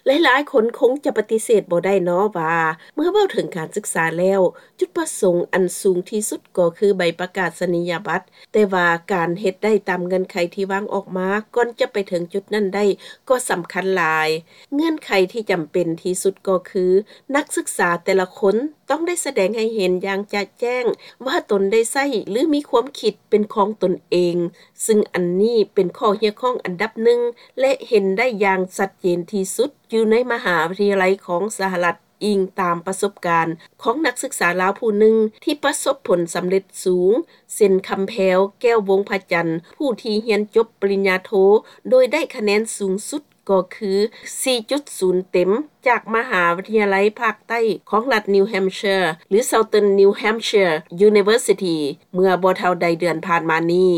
ຫຼາຍໆຄົນຄົງຈະປະຕິເສດບໍ່ໄດ້ເນາະວ່າ ເມື່ອເວົ້າເຖິງການສຶກສາແລ້ວ ຈຸດປະສົງອັນສູງທີ່ສຸດກໍຄືໃບປະກາສະນີຍະບັດ, ແຕ່ວ່າການເຮັດໄດ້ຕາມເງື່ອນໄຂທີ່ວາງອອກມາ ກ່ອນຈະໄປເຖິງຈຸດນັ້ນໄດ້ກໍສຳຄັນຫຼາຍ. ເງື່ອນໄຂທີ່ຈຳເປັນທີ່ສຸດກໍຄື ນັກສຶກສາແຕ່ລະຄົນ ຕ້ອງໄດ້ສະແດງໃຫ້ເຫັນຢ່າງຈະແຈ້ງວ່າຕົນໄດ້ໃຊ້ ຫຼື ມີຄວາມຄິດເປັນຂອງຕົນເອງ, ຊຶ່ງອັນນີ້ເປັນຂໍ້ຮຽກຮ້ອງອັນດັບໜຶ່ງ ແລະ ເຫັນໄດ້ຢ່າງຊັດເຈນທີ່ສຸດຢູ່ໃນມະຫາວິທະຍາໄລຂອງສະຫະລັດ, ອີງຕາມປະສົບການຂອງນັກສຶກສາລາວຜູ້ໜຶ່ງທີ່ປະສົບຜົນສຳເລັດສູງ ເຊັ່ນ ຄຳແພວ ແກ້ວວົງພະຈັນ ຜູ້ທີ່ຮຽນຈົບປະລິນຍາໂທ ໂດຍໄດ້ຄະແນນສູງສຸດ ກໍຄື ສີ່ຈຸດສູນເຕັມ ຈາກມະຫາວິທະຍາໄລພາກໃຕ້ຂອງລັດ New Hampshire ຫຼື Southern New Hampshire University ເມື່ອບໍ່ເທົ່າໃດເດືອນຜ່ານມານີ້.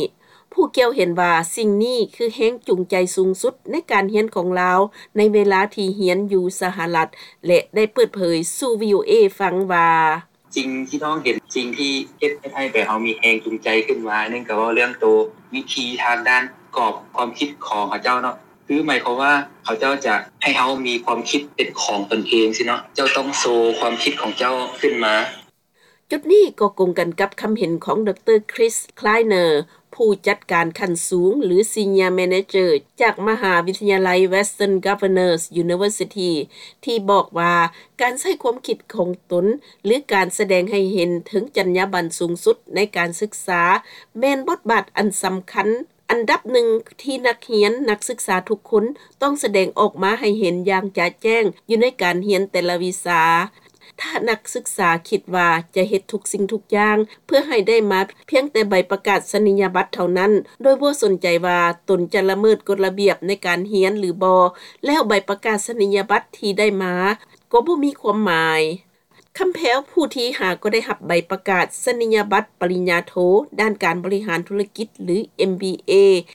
ຜູ້ກ່ຽວເຫັນວ່າສິ່ງນີ້ຄືແຮງຈູງໃຈສູງສຸດໃນການຮຽນຂອງລາວ ໃນເວລາທີ່ຮຽນຢູ່ສະຫະລັດ ແລະ ໄດ້ເປີດເຜີຍສູ່ ວີໂອເອ ຟັງວ່າ: ສິ່ງທີ່ນ້ອງເຫັນ ສິ່ງທີ່ເຮັດ ເຮັດໃຫ້ແບບເຮົາມີແຮງຈູງໃຈຂຶ້ນມາ ໜຶ່ງກໍເວົ້າເລື່ອງໂຕວິທີທາງດ້ານກອບຄວາມຄິດຂອງເຂົາເຈົ້າເນາະ ຄືໝາຍຄວາມວ່າເຂົາເຈົ້າຈະໃຫ້ເຮົາມີຄວາມຄິດເປັນຂອງຕົນເອງຊີ້ເນາະ ເຈົ້າຕ້ອງໂຊຄວາມຄິດຂອງເຈົ້າຂຶ້ນມາ. ຈຸດນີ້ກໍກົງກັນກັບຄຳເຫັນຂອງ ດຣ. Chris Kleiner ຜູ້ຈັດການຂັ້ນສູງ ຫຼື Senior Manager ຈາກມະຫາວິທະຍາໄລ Western Governors University ທີ່ບອກວ່າ ການໃຊ້ຄວາມຄິດຂອງຕົນ ຫຼື ການສະແດງໃຫ້ເຫັນເຖິງຈັນຍາບັນສູງສຸດໃນການສຶກສາ ແມ່ນບົດບາດອັນສຳຄັນອັນດັບໜຶ່ງທີ່ນັກຮຽນ, ນັກສຶກສາທຸກຄົນຕ້ອງສະແດງອອກມາໃຫ້ເຫັນຢ່າງຈະແຈ້ງຢູ່ໃນການຮຽນແຕ່ລະວິຊາ. ຖ້ານັກສຶກສາຄິດວ່າຈະເຮັດທຸກສິ່ງທຸກຢ່າງເພື່ອໃຫ້ໄດ້ມາພຽງແຕ່ໃບປະກາສະນີຍະບັດເທົ່ານັ້ນ ໂດຍບໍ່ສົນໃຈວ່າຕົນຈະລະເມີດກົດລະບຽບໃນການຮຽນຫຼືບໍ່, ແລ້ວໃບປະກາສະນີຍະບັດທີ່ໄດ້ມາກໍບໍ່ມີຄວາມໝາຍ. ຄຳແພວ ຜູ້ທີ່ຫາກໍໄດ້ຮັບໃບປະກາສະນີຍະບັດປະລິນຍາໂທ ດ້ານການບໍລິຫານທຸລະກິດ ຫຼື ເອັມບີເອ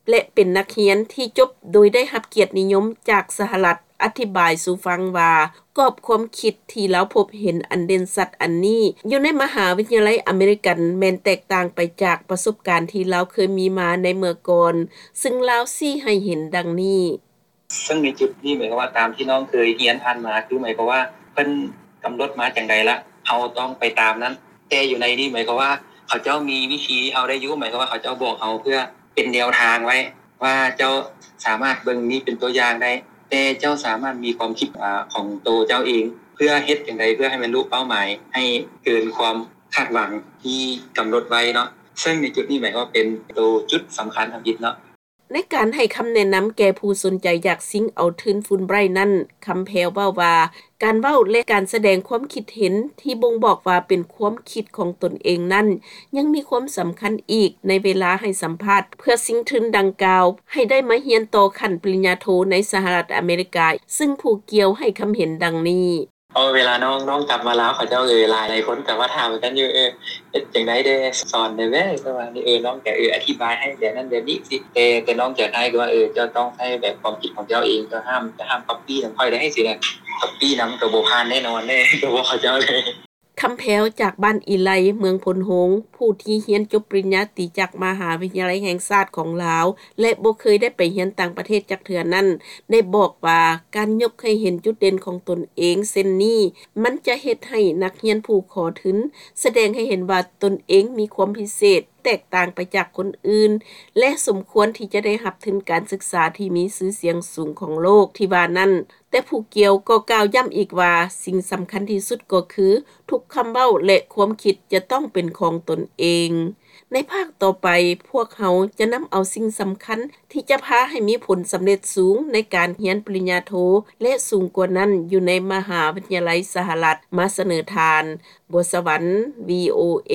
ແລະ ເປັນນັກຮຽນທີ່ຈົບໂດຍໄດ້ຮັບກຽດນິຍົມຈາກສະຫະລັດ ອະທິບາຍສູ່ຟັງວ່າ ກອບຄວາມຄິດທີ່ລາວພົບເຫັນອັນເດັ່ນຊັດອັນນີ້ ຢູ່ໃນມະຫາວິທະຍາໄລອາເມລິກັນ ແມ່ນແຕກຕ່າງໄປຈາກປະສົບການທີ່ລາວເຄີຍມີມາໃນເມື່ອກ່ອນ, ຊຶ່ງລາວຊີ້ໃຫ້ເຫັນດັ່ງນີ້. ເຊິ່ງໃນຈຸດນີ້ໝາຍຄວາມວ່າ ຕາມທີ່ນ້ອງເຄີຍຮຽນຜ່ານມາ ຄືໝາຍຄວາມວ່າເພິ່ນກຳນົດມາຈັ່ງໃດລະ ເຮົາຕ້ອງໄປຕາມນັ້ນ. ແຕ່ຢູ່ໃນນີ້ໝາຍຄວາມວ່າ ເຂົາເຈົ້າມີວິທີເຮົາໄດ້ຢູ່ ໝາຍຄວາມວ່າເຂົາເຈົ້າບອກເຮົາເພື່ອເປັນແນວທາງໄວ້ວ່າ ເຈົ້າສາມາດເບິ່ງນີ້ເປັນຕົວຢ່າງໄດ້ ແຕ່ເຈົ້າສາມາດມີຄວາມຄິດ ອາ ຂອງໂຕເຈົ້າເອງ ເພື່ອເຮັດຈັ່ງໃດເພື່ອໃຫ້ບັນລຸເປົ້າໝາຍ ໃຫ້ເກີນຄວາມຄາດຫວັງທີ່ກຳນົດໄວ້ເນາະ. ເຊິ່ງໃນຈຸດນີ້ໝາຍຄວາມວ່າເປັນໂຕຈຸດສຳຄັນທຳອິດເນາະ. ໃນການໃຫ້ຄຳແນະນຳແກ່ຜູ້ສົນໃຈຢາກຊິງເອົາທຶນ Fulbright ນັ້ນ, ຄຳແພວເວົ້າວ່າ ການເວົ້າ ແລະ ການສະແດງຄວາມຄິດເຫັນທີ່ບົ່ງບອກວ່າເປັນຄວາມຄິດຂອງຕົນເອງນັ້ນ ຍັງມີຄວາມສຳຄັນອີກໃນເວລາໃຫ້ສຳພາດເພື່ອຊິງທຶນດັ່ງກ່າວ ໃຫ້ໄດ້ມາຮຽນຕໍ່ຂັ້ນປະລິນຍາໂທໃນສະຫະລັດອາເມລິກາ, ຊຶ່ງຜູ້ກ່ຽວໃຫ້ຄຳເຫັນດັ່ງນີ້. ເອີ ເວລານ້ອງ ນ້ອງກັບມາລາວ ເຂົາເຈົ້າ ເອີ ຫຼາຍ ຫຼາຍຄົນກໍມາຖາມກັນຢູ່ ເອີ ເຮັດຈັ່ງໃດແດ່ ສອນແດ່ແວ່ ປະມານນີ້ ເອີ ນ້ອງກໍ ເອີ ອະທິບາຍໃຫ້ແບບນັ້ນແບບນີ້ຊີ້ ແຕ່ ແຕ່ນ້ອງຈະໃຫ້ຄືວ່າ ເອີ ເຈົ້າຕ້ອງໃຊ້ແບບຄວາມຄິດຂອງເຈົ້າເອງ ເຈົ້າຫ້າມ ເຈົ້າຫ້າມກັອບປີ້ນຳຂ້ອຍໄດ້ຊີ້ນະ ກັອບປີ້ນຳກໍບໍ່ຜ່ານແນ່ນອນເດ້ ກໍບອກເຂົາເຈົ້າເລີຍ. ຄຳແພວ ຈາກບ້ານອີໄລ ເມືອງໂພນໂຮງ ຜູ້ທີ່ຮຽນຈົບປະລິນຍາຕີຈາກມະຫາວິທະຍາໄລແຫ່ງຊາດຂອງລາວ ແລະ ບໍ່ເຄີຍໄດ້ໄປຮຽນຕ່າງປະເທດຈັກເທື່ອນັ້ນ ໄດ້ບອກວ່າ ການຍົກໃຫ້ເຫັນຈຸດເດັ່ນຂອງຕົນເອງເຊັ່ນນີ້ ມັນຈະເຮັດໃຫ້ນັກຮຽນຜູ້ຂໍທຶນສະແດງໃຫ້ເຫັນວ່າຕົນເອງມີຄວາມພິເສດ ແຕກຕ່າງໄປຈາກຄົນອື່ນ ແລະ ສົມຄວນທີ່ຈະໄດ້ຮັບທຶນການສຶກສາທີ່ມີຊື່ສຽງສູງຂອງໂລກທີ່ວ່ານັ້ນ. ແຕ່ຜູ້ກ່ຽວກໍກ່າວຢ້ຳອີກວ່າ ສິ່ງສຳຄັນທີ່ສຸດກໍຄື ທຸກຄຳເວົ້າ ແລະ ຄວາມຄິດຈະຕ້ອງເປັນຂອງຕົນເອງ. ໃນພາກຕໍ່ໄປ, ພວກເຮົາຈະນຳເອົາສິ່ງສຳຄັນທີ່ຈະພາໃຫ້ມີຜົນສຳເລັດສູງໃນການຮຽນປະລິນຍາໂທ ແລະ ສູງກວ່ານັ້ນຢູ່ໃນມະຫາວິທະຍາໄລສະຫະລັດ ມາສະເໜີທ່ານ. ບົວສະຫວັນ ວີໂອເອ.